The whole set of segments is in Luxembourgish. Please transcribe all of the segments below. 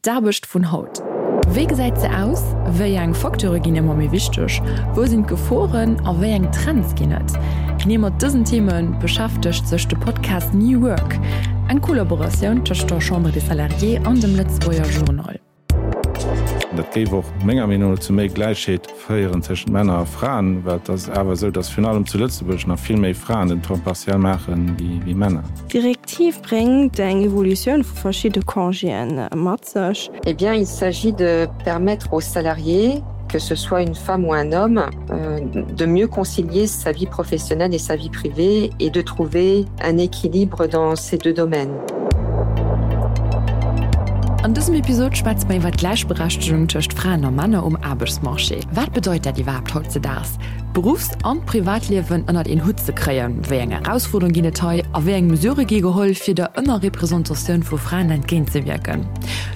D'Aarbecht vun haut. Wéi gesäit se aus? Wéi eng Facteure ginn ëmmer méi wichteg? Wou sinn d'Geforen a wéi eng Trends ginn et? Genee mat dësen Theme beschäftegt sech de Podcast New Work, eng Kollaboratioun tëscht der Chambre des Salariés an dem Lëtzebuerger Journal. Dat géif och menger Meenung no zu méi Gläichheet féieren tëschent Männer a Fraen, well et ass awer esou, datt virun allem zu Lëtzebuerg nach vill méi Fraen den Temps partiel maache wéi Männer. D'Direktiv bréngt eng Evolutioun vu verschidde Congéen mat sech. Eh bien, il s'agit de permettre aux salariés, que ce soit une femme ou un homme, de mieux concilier sa vie professionnelle et sa vie privée et de trouver un équilibre dans ces deux domaines. An dësem Episod schwätze mer iwwer d'Gläichberechtegung tëscht Fraen a Männer um Aarbechtsmarché. Wat bedeit dat iwwerhaapt hautzedaags, d'Beruffs an d'Privatliewen ënnert een Hutt ze kréien? Wéi eng Erausfuerderunge ginn et hei a wéi eng Mesurë gi geholl, fir der Ënnerrepresentatioun vu Fraen entgéintzewierken?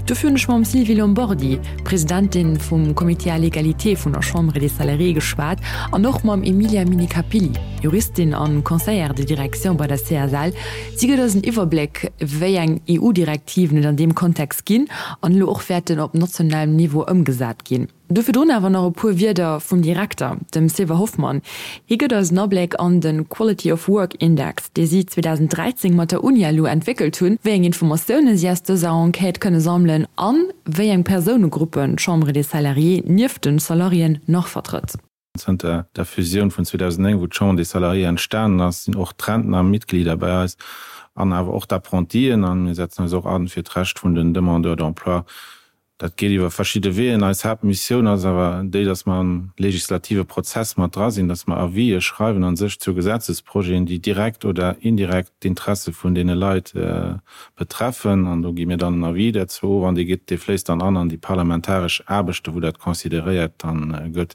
Dofir hunn ech mam Sylvie Lombardi, Presidentin vum Comité à l'égalité vun der Chambre des Salariés geschwat an och mam Emilia Minacapilli, Juristin an Conseillère de direction bei der CSL. Si gëtt eis en Iwwerbléck, wéi eng EU-Direktiven et an deem Kontext ginn an elo och wäerten op nationalem Niveau ëmgesat ginn. Do virdrun awer nach e puer Wierder vum Direkter, dem Sylvain Hoffmann. Hie gëtt eis en Abléck an de Quality of Work Index, dee si 2013 mat der Unialu entwéckelt hunn, wéi eng Informatioune si aus dëser Enquête kënne sammelen an wéi eng Persounegruppen d'Chambre des Salariés nieft de Salariéen nach vertrëtt. Zënter der Fusioun vun 2009, wou d'Chambre des Salariés entstanen ass, sinn och d'Rentner Mitglieder bei eis an awer och d'Apprentien. A mir setzen eis och an fir d'Recht vun den Demandeurs d'emploi. Dat geet iwwer verschidde Weeën. Eis Haaptmissioun ass awer déi, dass mer am legislative Prozess mat dra sinn, dass mer Avisë schreiwen a sech zu Gesetzesprojeten, déi direkt oder indirekt d'Interesse vun deene Leit betreffen. An do gi mir dann en Avis derzou of an dee geet, dee fléisst dann an an déi parlamentaresch Aarbechten, wou dat consideréiert dann gëtt.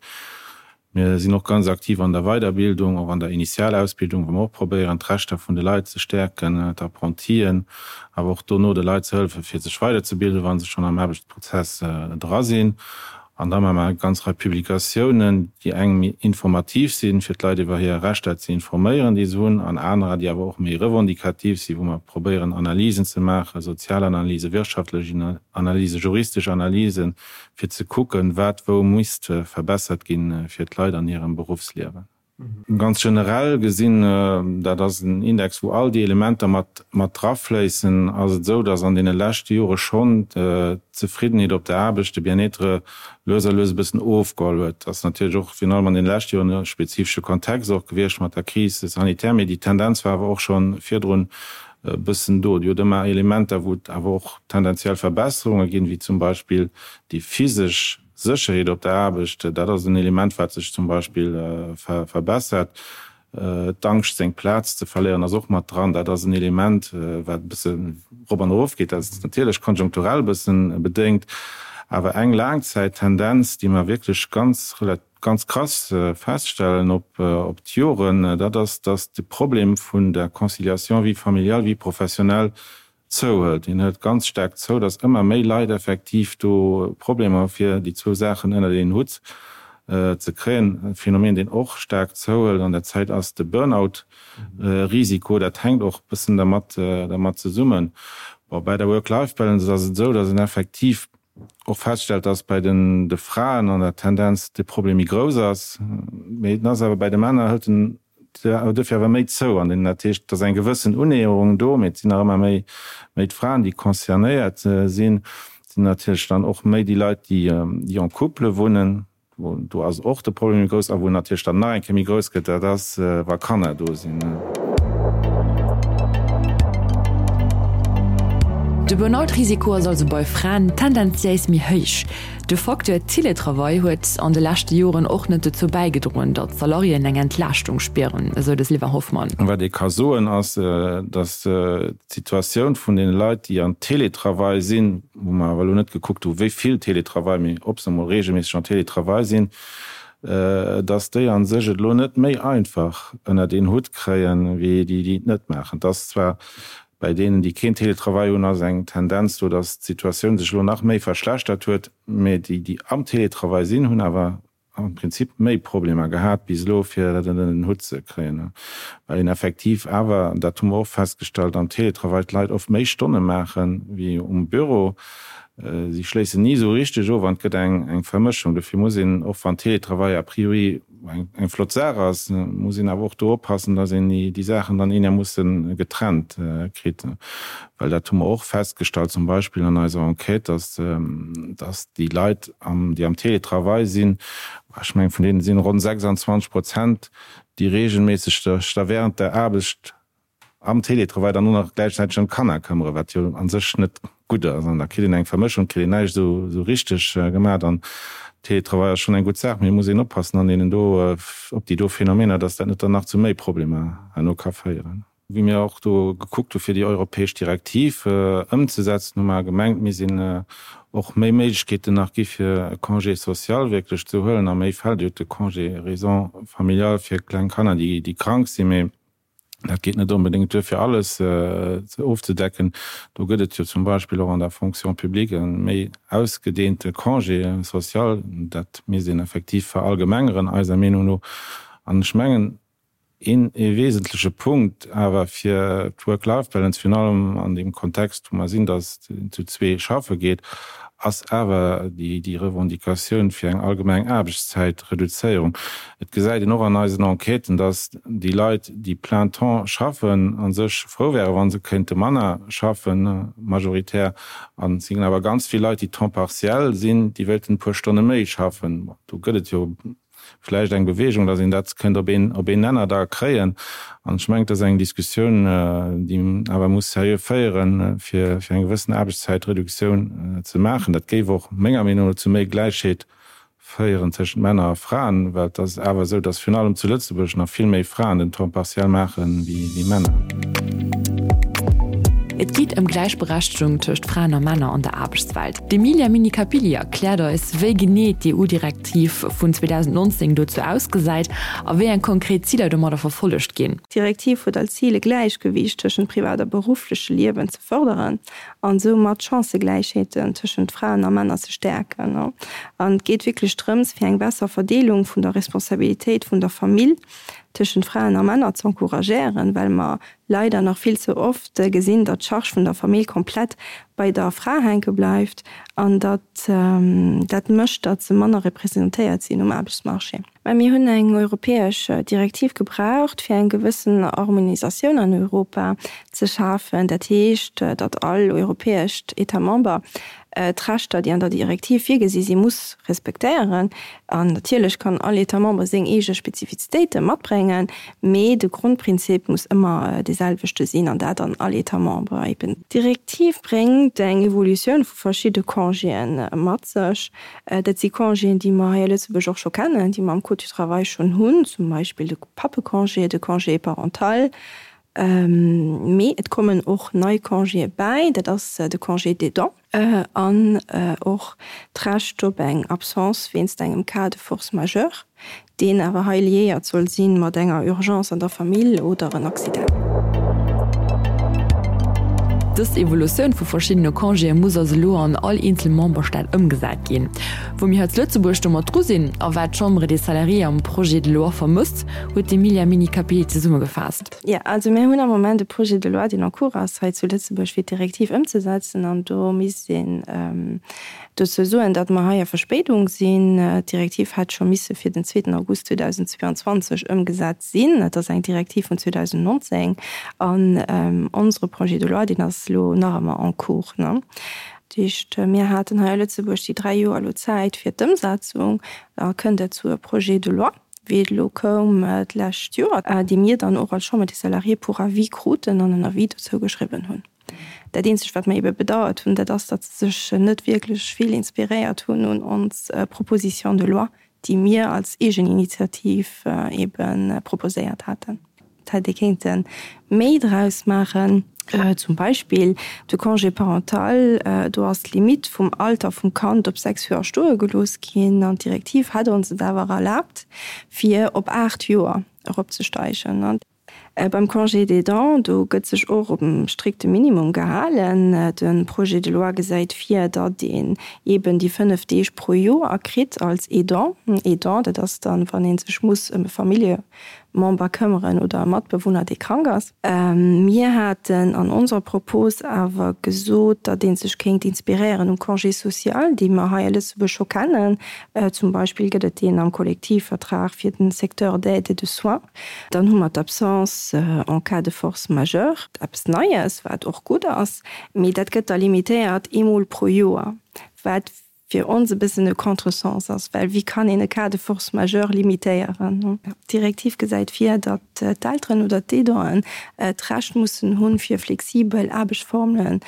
Mir sinn och ganz aktiv an der Weiderbildung, och an der Initialausbildung, wou mer och probéieren, d'Rechter vun de Leit ze stäerken, d'Apprentien, awer och dono de Leit ze hëllefen, fir sech weiderzebilden, wa se schonn am Aarbechtsprozess dra sinn. An da maache mer eng ganz Rei Publikatiounen, déi eng méi informativ sinn, fir d'Leit iwwer hir Rechter ze informéieren, déi se hunn, an anerer, déi awer och méi revendikativ sinn, wou mer probéieren, Analysen ze maachen, Sozialanalysen, wirtschaftlech Analysen, juristesch Analysen, fir ze kucken, wat wou misst verbessert ginn, fir d'Leit an hirem Beruffsliewen. Ganz generell gesinn, dat ass en Index, wou all déi Elementer mat mat drafléissen, ass et esou, datt an deene leschte Jore schonn d'Zefriddenheet op der Aarbecht, de Bien-être, lues a lues e bëssen ofgeholl huet. Dat ass natierlech och virun allem an deene leschte Joren e spezifesche Kontext och gewiescht mat der Crise sanitaire, mee déi Tendenz war awer och scho virdrun e bëssen do. Dir hutt ëmmer Elementer, wou et awer och tendenziell Verbesserunge ginn, wéi zum Beispill déi physesch Sécherheet op der Aarbecht. Dat ass en Element, wat sech zum Beispill verbessert. D'Angscht, seng Plaz ze verléieren, ass och mat dran. Dat ass en Element, wat e bësse rop an erof geet. Dat ass natierlech konjunkturell e bësse bedéngt. Awer eng Laangzäittendenz, déi mer wierklech ganz ganz krass feststellen op op d'Joren, dat ass, datt de Problem vun der Conciliation vie familiale, vie professionnelle zouhëlt. Deen hëlt ganz staark zou, datt ëmmer méi Leit effektiv do Problemer hu fir déi zwou Saachen ënnert een Hutt ze kréien. E Phänomen, deen och staark zouhëlt an der Zäit, ass de Burnout-Risiko. Dat hänkt och e bëssen dermat dermat zesummen. Bon, bäi der Work-Life-Balance ass et esou, datt een effektiv och feststellt, dass bei den de Fraen an der Tendenz de Problem méi grouss ass, mee en ass awer bei de Männer hëlt en duerfir awer méi zou. An dat heescht, et ass eng gewëssen Unnäherung do, mee et sinn nach ëmmer méi méi d'Fraen, déi concernéiert sinn. Et sinn natierlech dann och méi déi Leit, déi déi en couple wunnen. Do ass och de Problem méi grouss. A wou en natierlech dann nach eng Kéier méi grouss gëtt, dat ass, wa Kanner do sinn. De Burnout-Risiko ass also bei Fraen tendenziéis méi héich. De Facteur Teletravail huet an de leschte Joren och net dozou bäigedroen, datt d'Salariéen eng Entlaaschtung spieren, esou de Sylvain Hoffmann. Wat ee ka soen, ass, datt d'Situatioun vun deene Leit, déi an Teletravail sinn, wou mer awer elo net gekuckt hu wéi vill Teletravail, mee ob se emol regelméisseg en Teletravail sinn, dass déi a sech et elo net méi einfach ënnert een Hutt kréien, wéi déi, déi et net maachen. Et ass zwar bei deenen, déi keen Teletravail hunn, ass eng Tendenz do, dass d'Situatioun sech elo nach méi verschlechtert huet, mee déi, déi am Teletravail sinn, hunn awer am Prinzip méi Problemer gehat bis elo, fir dat ënner den Hutt ze kréien, well een effektiv awer, an dat hu mer och festgestallt, am Teletravail d'Leit oft méi Stonne maache wéi um Büro. Si schléissen ni esou richteg of an et gëtt eng Vermëschung. Dofir muss een, och wann Télétravail a priori eng flott Saach ass, muss een awer och do oppassen, datt een déi Saachen dann eenermoosse getrennt kritt. Well dat hu mer och festgestallt, zum Beispill an eiser Enquête, datt déi Leit, déi am Télétravail sinn, ech mengen, vun deene sinn ronn 26 Prozent, déi reegelméisseg sech da während der Aarbecht am Télétravail dann och nach gläichzäiteg ëm d'Kanner këmmere, wat jo a sech net gutt ass. An da kritt een eng Vermëschung, kritt een näischt esou richteg gemaach. An Télétravail ass schonn eng gutt Saach, mee et muss een oppassen an deenen do, op déi do Phänomener, dass dat net dann nach zu méi Problemer herno ka féieren. Wéi mir och do gekuckt hu fir déi europäesch Direktiv ëmzesetzen, hu mer gemengt, mir sinn och méi Méiglechkeeten nach gi fir e Congé social wierklech ze huelen a méi Fäll. Dir hutt de Congé raison familiale fir kleng Kanner, déi krank sinn, mee Dat geet net onbedéngt duer, fir alles ofzedecken. Do gëtt et jo zum Beispill och an der Fonction publique e méi ausgedeente Congé social. Dat misst een effektiv verallgemengeren, eiser Meenung no. An ech mengen, een ee wesentleche Punkt awer fir d'Work-Life-Balance, virun allem an deem Kontext, wou mer sinn, datt een zu zwee schaffe geet, ass awer déi Revendicatioun fir eng allgemeng Aarbechtszäitreduzéierung. Et gesäit een och an eisen Enquêten, dass déi Leit, déi plein temps schaffen, a sech frou wären, wa se kéinte manner schaffen, majoritär. An et sinn awer ganz vill Leit, déi temps partiel sinn, déi wéilten e puer Stonne méi schaffen. Bon, do gëtt et jo vläicht eng Bewegung, dass een dat kéint op een, op een Nenner da kréien. An ech mengen, et ass eng Diskussioun, déi een awer muss seriö féieren, fir, fir eng gewëssen Aarbechtszäitreduktioun ze maachen. Dat géif och menger Meenung no zu méi Gläichheet féieren tëschent Männer a Fraen, well et ass awer esou, datt virun allem zu Lëtzebuerg nach vill méi Fraen den Temps partiel maache wéi Männer. Et geet ëm Gläichberechtegung tëscht Fraen a Männer an der Aarbechtswelt. D'Emilia Minnicapilli erkläert eis, wéi genee d'EU-Direktiv vun 2019 dozou ausgesäit a wéi eng konkret Ziler domadder verfollegt ginn. D'Direktiv huet als Zil e Gläichgewiicht tëschent privat a beruffleche Liewen ze fërderen an soumat d'Chancëgläichheeten tëschent Fraen a Männer ze stäerken. An et geet wierklech drëms, fir eng besser Verdeelung vun der Responsabilitéit vun der Famill tëschent Fraen a Männer z'encouragéieren, well mer leider nach vill ze oft gesinn, datt d'Charge vun der Famill komplett bei der Fra hänke bleift an datt dat mécht, datt se manner representéiert sinn um Aarbechtsmarché. Mä mir hunn eng europäesch Direktiv gebraucht, fir eng gewëssen Harmonisatioun an Europa ze schafen. Dat heescht, datt all europäescht État member d'Rechter, déi an der Direktiv virgesi sinn, muss respektéieren. An natierlech kann all État member seng eege Spezifizitéite matbréngen, mee de Grondprinzip muss ëmmer dee selwechte sinn, an dat an all État member eben. D'Direktiv bréngt eng Evolutioun vu verschidde Congéen mat sech. Dat si Congéen, déi mer hei a Lëtzebuerg och scho kennen, déi mer am Code du travail schonn hunn, zum Beispill de Pappecongé, de Congé parental. Mee et kommen och nei Congéë bäi, dat ass de Congé d'aidant an och d'Recht op eng Absence wéinst engem Cas de force majeure. Deen awer hei liéiert soll si mat enger Urgence an der Famill oder en Accident. Dës Evolutioun vu verschiddene Congéë muss also elo an all eenzel Memberstaat ëmgesat ginn. Wou mir hei zu Lëtzebuerg domat dru sinn a wat d'Chambre des Salariés am Projet de loi vermësst, huet d'Emilia Minicapilli zesummegefaasst. Jo, also mir hunn am Moment e Projet de loi, deen en cours ass hei zu Lëtzebuerg, fir d'Direktiv ëmzesetzen. An do misst een Dozou soen, datt mer hei a Verspéidung sinn. D'Direktiv hätt scho misse fir den zweeten August 2022 ëmgesat sinn. Et ass eng Direktiv vun 2019 an onsere Projet de loi, deen ass elo nach ëmmer en cours. Dat heescht, mir haten hei a Lëtzebuerg déi dräi Joer elo Zäit fir d'Ëmsetzung. Da kënnt et zu e Projet de loi, wéi et elo koum d'lescht Joer, dee mir dann och als Chambre des Salariés pour avis kruten an en Avis dozou geschriwwen hunn. Dat eenzegt, wat mer ebe bedauert hunn, dat ass, datt se sech net wierklech vill inspiréiert hunn un ons Proposition de loi, déi mir als Eegeninitiativ ebe proposéiert haten. Et hätt ee kéinte méi draus maachen. Zum Beispill de Congé parental, do ass d'Limitt vum Alter vum Kand op 6 Joer stoe gelooss ginn an d'Direktiv hätt ons et awer erlaabt, fir op 8 Joer eropzesteigen. Beim Congé d'aidant, do gëtt sech och op e strikte Minimum gehalen. De Projet de loi gesäit vir, datt een eeben déi 5 Deeg pro Joer kritt als Aidant. Aidant, dat ass dann, wann ee sech muss ëm e Familljemember. Member këmmeren oder e Matbewunner, dee krank ass. Mir haten an onser Propos awer gesot, datt ee sech kéint inspiréieren um Congé social, dee mer hei a Lëtzebuerg scho kennen. Zum Beispill gëtt et deen am Kollektivvertrag fir den Secteur d'aide et de soins. Dann hu mer d'Absence en cas de force majeure, eppes Neies, wat och gutt ass, mee dat gëtt da limitéiert eemol pro Joer, wat fir ons e bëssen e Contresens ass, well wéi kann een e Cas de force majeure limitéieren? D'Direktiv gesäit vir, datt d'Elteren oder d'Aidanten d'Recht mussen hunn, fir flexibel Aarbechtsformelen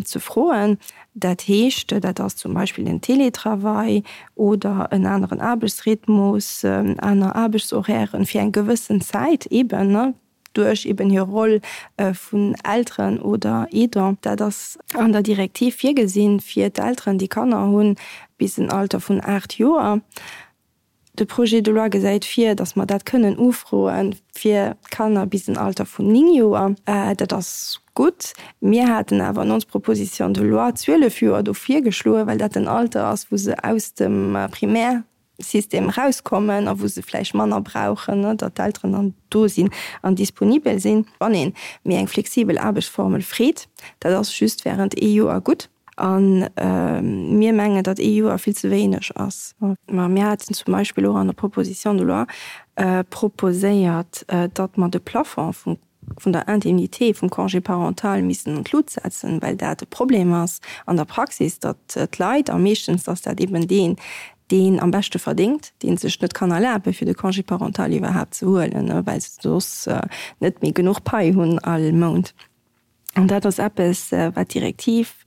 ze froen. Dat heescht, dat ass zum Beispill den Télétravail oder en aneren Aarbechtsrhythmus, aner Aarbechtshorairen fir eng gewëssen Zäit eeben. duerch eben hir Roll vun Elteren oder Aidant. Dat ass an der Direktiv virgesinn fir d'Elteren, déi Kanner hunn bis en Alter vun 8 Joer. De Projet de loi gesäit vir, datt mer dat kënnen ufroe fir d'Kanner bis en Alter vun 9 Joer. Dat ass gutt. Mir haten awer an ons Proposition de loi 12 Joer do virgeschloen, well dat den Alter ass, wou se aus dem Primaire System erauskommen a wou se vläicht manner brauchen, datt d'Elteren dann do sinn an disponibel sinn. Wann ee méi eng flexibel Aarbechtsformel freet, dat ass just während ee Joer gutt. A mir mengen, datt ee Joer vill ze wéineg ass. Mä mir haten zum Beispill och an der Proposition de loi proposéiert, datt mer de Plafond vum vun der Indemnité vum Congé parental missten an d'Lut setzen, well dat e Problem ass an der Praxis, datt d'Leit, a meeschtens ass dat eben deen, deen am beschte verdéngt, dee sech net kann erlaben, fir de Congé parental iwwerhaapt ze huelen, well se soss net méi genuch Pai hunn all Mount. An dat ass eppes, wat d'Direktiv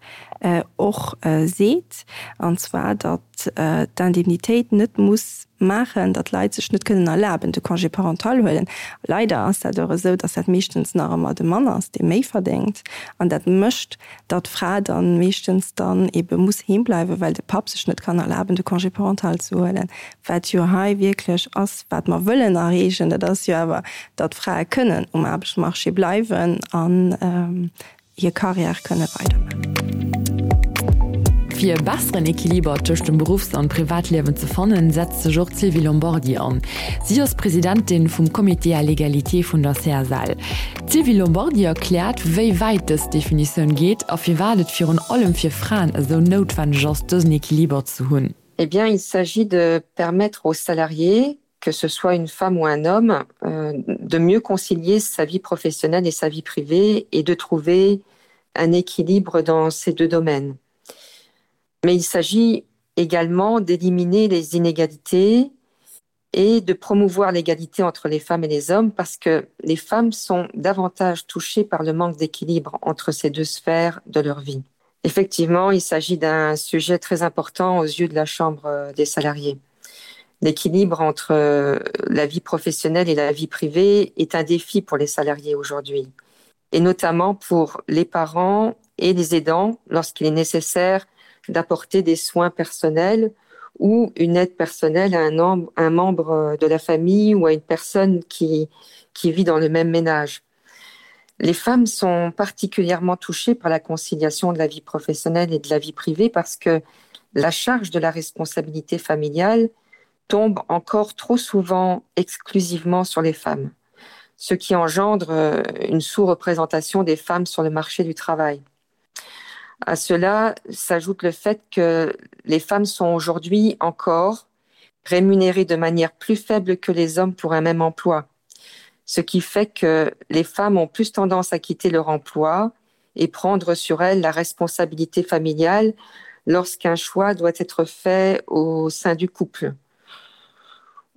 och seet, an zwar datt d'Indemnitéit net muss maachen, datt Leit sech net kënnen erlaben, de Congé parental huelen. Leider ass dat och esou, datt dat meeschtens nach ëmmer de Mann ass, dee méi verdéngt. An dat mécht, datt d'Fra da meeschtens dann ebe muss heem bleiwen, well de Papp sech net kann erlaben, de Congé parental ze huelen. Wat jo hei wierklech ass, wat mer wëllen erreechen, dat ass jo awer, datt Frae kënnen um Aarbechtsmarché bleiwen an hir Carrière kënne weidermaachen. Fir e besseren Equiliber tëscht dem Beruffs an Privatliewen ze fannen, setzt sech och d'Sylvie Lombardi an. Si ass Presidentin vum Comité à l'égalité vun der CSL. D'Sylvie Lombardi erkläert, wéi wäit dës Definitioun geet a firwat et virun allem fir Fraen esou noutwenneg ass, dësen Equiliber ze hunn. Eh bien, il s'agit de permettre aux salariés, que ce soit une femme ou un homme, euh, de mieux concilier sa vie professionnelle et sa vie privée et de trouver un équilibre dans ces deux domaines. Mais il s'agit également d'éliminer les inégalités et de promouvoir l'égalité entre les femmes et les hommes parce que les femmes sont davantage touchées par le manque d'équilibre entre ces deux sphères de leur vie. Effectivement, il s'agit d'un sujet très important aux yeux de la Chambre euh, des salariés. L'équilibre entre euh, la vie professionnelle et la vie privée est un défi pour les salariés aujourd'hui, et notamment pour les parents et les aidants lorsqu'il est nécessaire d'apporter des soins personnels ou une aide personnelle à un, un membre de la famille ou à une personne qui, qui vit dans le même ménage. Les femmes sont particulièrement touchées par la conciliation de la vie professionnelle et de la vie privée parce que la charge de la responsabilité familiale tombe encore trop souvent exclusivement sur les femmes, ce qui engendre euh, une sous-représentation des femmes sur le marché du travail. À cela s'ajoute le fait que les femmes sont aujourd'hui encore rémunérées de manière plus faible que les hommes pour un même emploi, ce qui fait que les femmes ont plus tendance à quitter leur emploi et prendre sur elles la responsabilité familiale lorsqu'un choix doit être fait au sein du couple.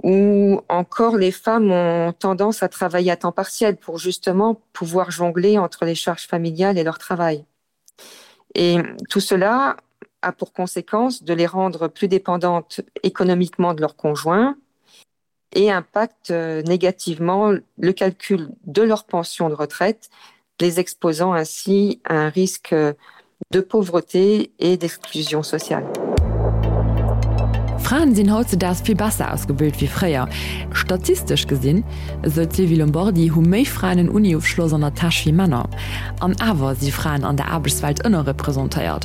Ou encore les femmes ont tendance à travailler à temps partiel pour justement pouvoir jongler entre les charges familiales et leur travail. Et tout cela a pour conséquence de les rendre plus dépendantes économiquement de leur conjoint et impacte euh, négativement le calcul de leur pension de retraite, les exposant ainsi à un risque de pauvreté et d'exclusion sociale. Fraen sinn hautzedaags vill besser ausgebilt wéi fréier. Statistesch gesinn, esou d'Sylvie Lombardi, hu méi Fraen en Uni-Ofschloss an der Täsch wéi Männer. An awer si Fraen an der Aarbechtswelt ënnerrepresentéiert.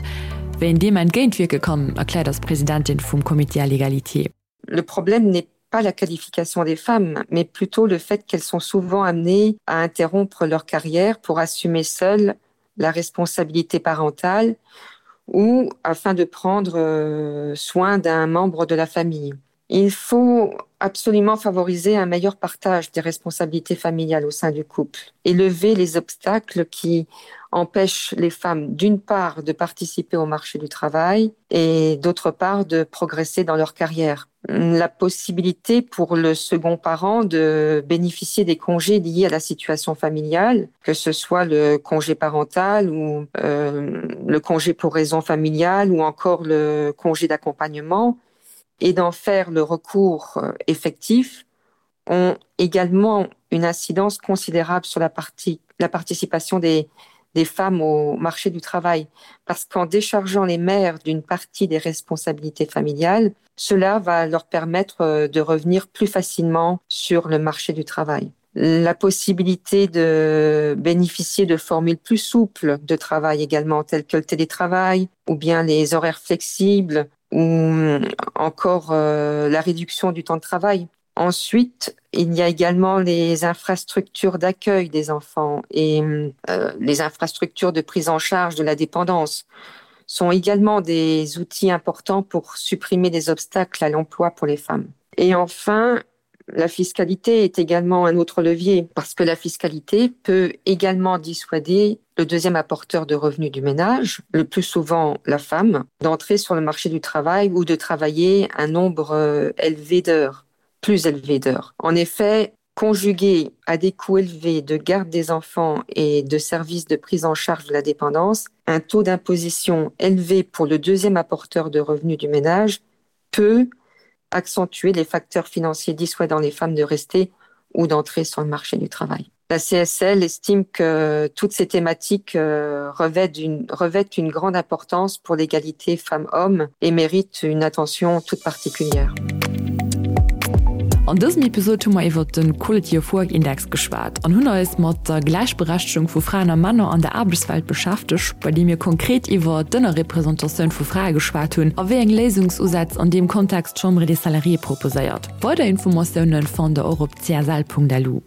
Wéi een deem entgéintwierke kann, erkläert eis d'Presidentin vum Comité à l'égalité. Le problème n'est pas la qualification des femmes, mais plutôt le fait qu'elles sont souvent amenées à interrompre leur carrière pour assumer seules la responsabilité parentale ou afin de prendre euh, soin d'un membre de la famille. Il faut absolument favoriser un meilleur partage des responsabilités familiales au sein du couple et lever les obstacles qui empêchent les femmes d'une part de participer au marché du travail et d'autre part de progresser dans leur carrière. La possibilité pour le second parent de bénéficier des congés liés à la situation familiale, que ce soit le congé parental ou euh, le congé pour raison familiale ou encore le congé d'accompagnement, et d'en faire le recours euh, effectif ont également une incidence considérable sur la, partie, la participation des, des femmes au marché du travail parce qu'en déchargeant les mères d'une partie des responsabilités familiales, cela va leur permettre euh, de revenir plus facilement sur le marché du travail. La possibilité de bénéficier de formules plus souples de travail également telles que le télétravail ou bien les horaires flexibles ou euh, encore euh, la réduction du temps de travail. Ensuite, il y a également les infrastructures d'accueil des enfants et euh, les infrastructures de prise en charge de la dépendance sont également des outils importants pour supprimer des obstacles à l'emploi pour les femmes. Et enfin, la fiscalité est également un autre levier parce que la fiscalité peut également dissuader le deuxième apporteur de revenus du ménage, le plus souvent la femme, d'entrer sur le marché du travail ou de travailler un nombre euh, élevé d'heures, plus élevé d'heures. En effet, conjugué à des coûts élevés de garde des enfants et de services de prise en charge de la dépendance, un taux d'imposition élevé pour le deuxième apporteur de revenus du ménage peut accentuer les facteurs financiers dissuadant les femmes de rester ou d'entrer sur le marché du travail. La CSL estime que toutes ces thématiques euh, revêtent une, revêtent une grande importance pour l'égalité femmes-hommes et méritent une attention toute particulière. An dësem Episod hu mer iwwert de Quality of Work Index geschwat an hunn eis mat der Gläichberechtegung vu Fraen a Männer an der Aarbechtswelt beschäftegt, bei deem mir konkret iwwer d'Ënnerrepresentatioun vu Frae geschwat hunn a wéi eng Léisungsusätz an deem Kontext d'Chambre des Salariés proposéiert. Weider Informatioune fannt der och op csl.lu.